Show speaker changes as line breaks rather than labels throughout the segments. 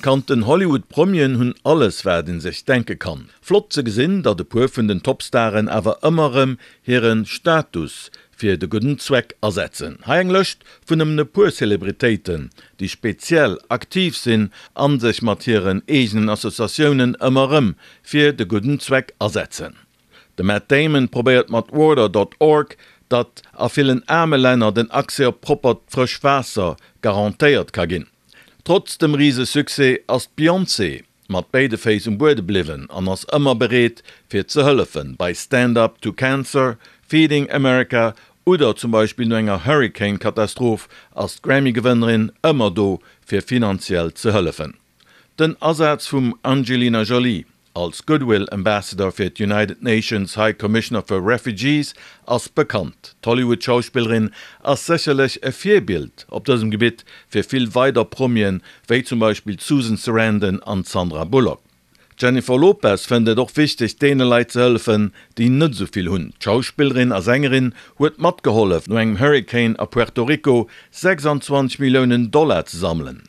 Bekannten Hollywood-Promien hunn alles wat een sech denke kann. Flott ze gesinn, datt e puer vun den Topstaren awer ëmmer rëm hiren Status fir de gudden Zweck asetzen. Hei eng Lëscht vun nëmmen e puer Celebritéiten, déi speziell aktiv sinn an sech mat hiren eegenen Associatiounen ëmmer rëm fir de gudden Zweck asetzen. De Matt Damon probéiert mat Water dot org, datt a villen aarme Länner den Accès op proppert frësch Waasser garantéiert ka ginn. Trotz dem rise Succès ass d'Beyoncé mat béide Féiss um Buede bliwwen an ass ëmmer bereet fir ze hëllefen, bei Stand Up To Cancer, Feeding America oder zum Beispill no enger Hurricane-Katastroph ass d'Grammy-Gewënnerin ëmmer do fir finanziell ze hëllefen. Den Asaz vum Angelina Jolie als Goodwill Ambassador fir d'United Nations High Commissioner for Refugees ass bekannt. D'Hollywood-Schauspillerin ass sécherlech e Virbild op dësem Gebitt fir vill weider Promien, wéi zum Beispill d'Susan Sarandon an d'Sandra Bullock. D'Jennifer Lopez fënnt et och wichteg, deene Leit ze hëllefen, déi net esou vill hunn. D'Schauspillerin a Sängerin huet matgehollef, no engem Hurricane a Puerto Rico 26 Milliounen Dollar ze sammelen.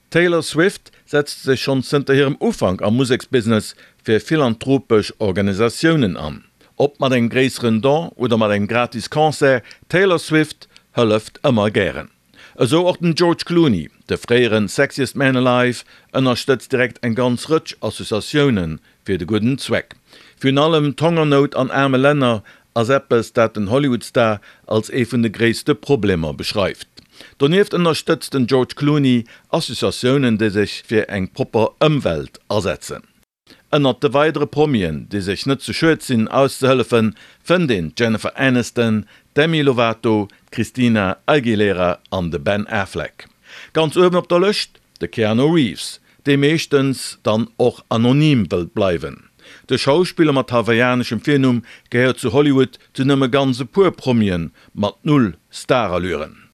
D'Taylor Swift setzt sech schonn zënter hirem Ufank am Museksbusiness fir philanthropesch Organisatiounen an. Ob mat engem gréisseren Don oder mat engem gratis Concert, d'Taylor Swift hëlleft ëmmer gären. Esou och den George Clooney, de fréiere Sexiest Man Alive ënnerstëtzt direkt eng ganz Rëtsch Associatioune fir de gudden Zweck. Virun allem d'Hongernout an aarme Länner ass eppes, dat den Hollywood-Star als ee vun de gréisste Problemer beschreift. Donieft ënnerstëtzt den George Clooney Associatiounen, déi sech fir eng propper Ëmwelt asetzen. Ënnert de weidere Promien, déi sech net ze schued sinn auszehëllefen, fënnt een d'Jennifer Aniston, d'Demi Lovato, d'Christina Aguilera an de Ben Affleck. Ganz uewen op der Lëscht, de Keanu Reeves, dee meeschtens dann och anonym wëllt bleiwen. De Schauspiller mat hawaiianeschem Virnumm gehéiert zu Hollywood zu nëmme ganz e puer Promien mat null Starallüren.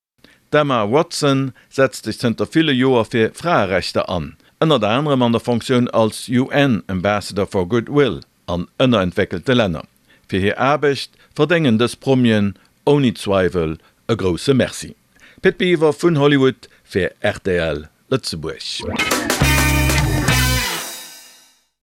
D'Emma Watson setzt sech zënter ville Joer fir Fraerechter an, ënnert anerem an der Fonctioun als UN Ambassador for Goodwill an ënnerentwéckelte Länner. Fir hir Aarbecht verdéngen dës Promien ouni Zweiwel e grousse Merci. Pit Biwer vun Hollywood fir rtl Lëtzebuerg.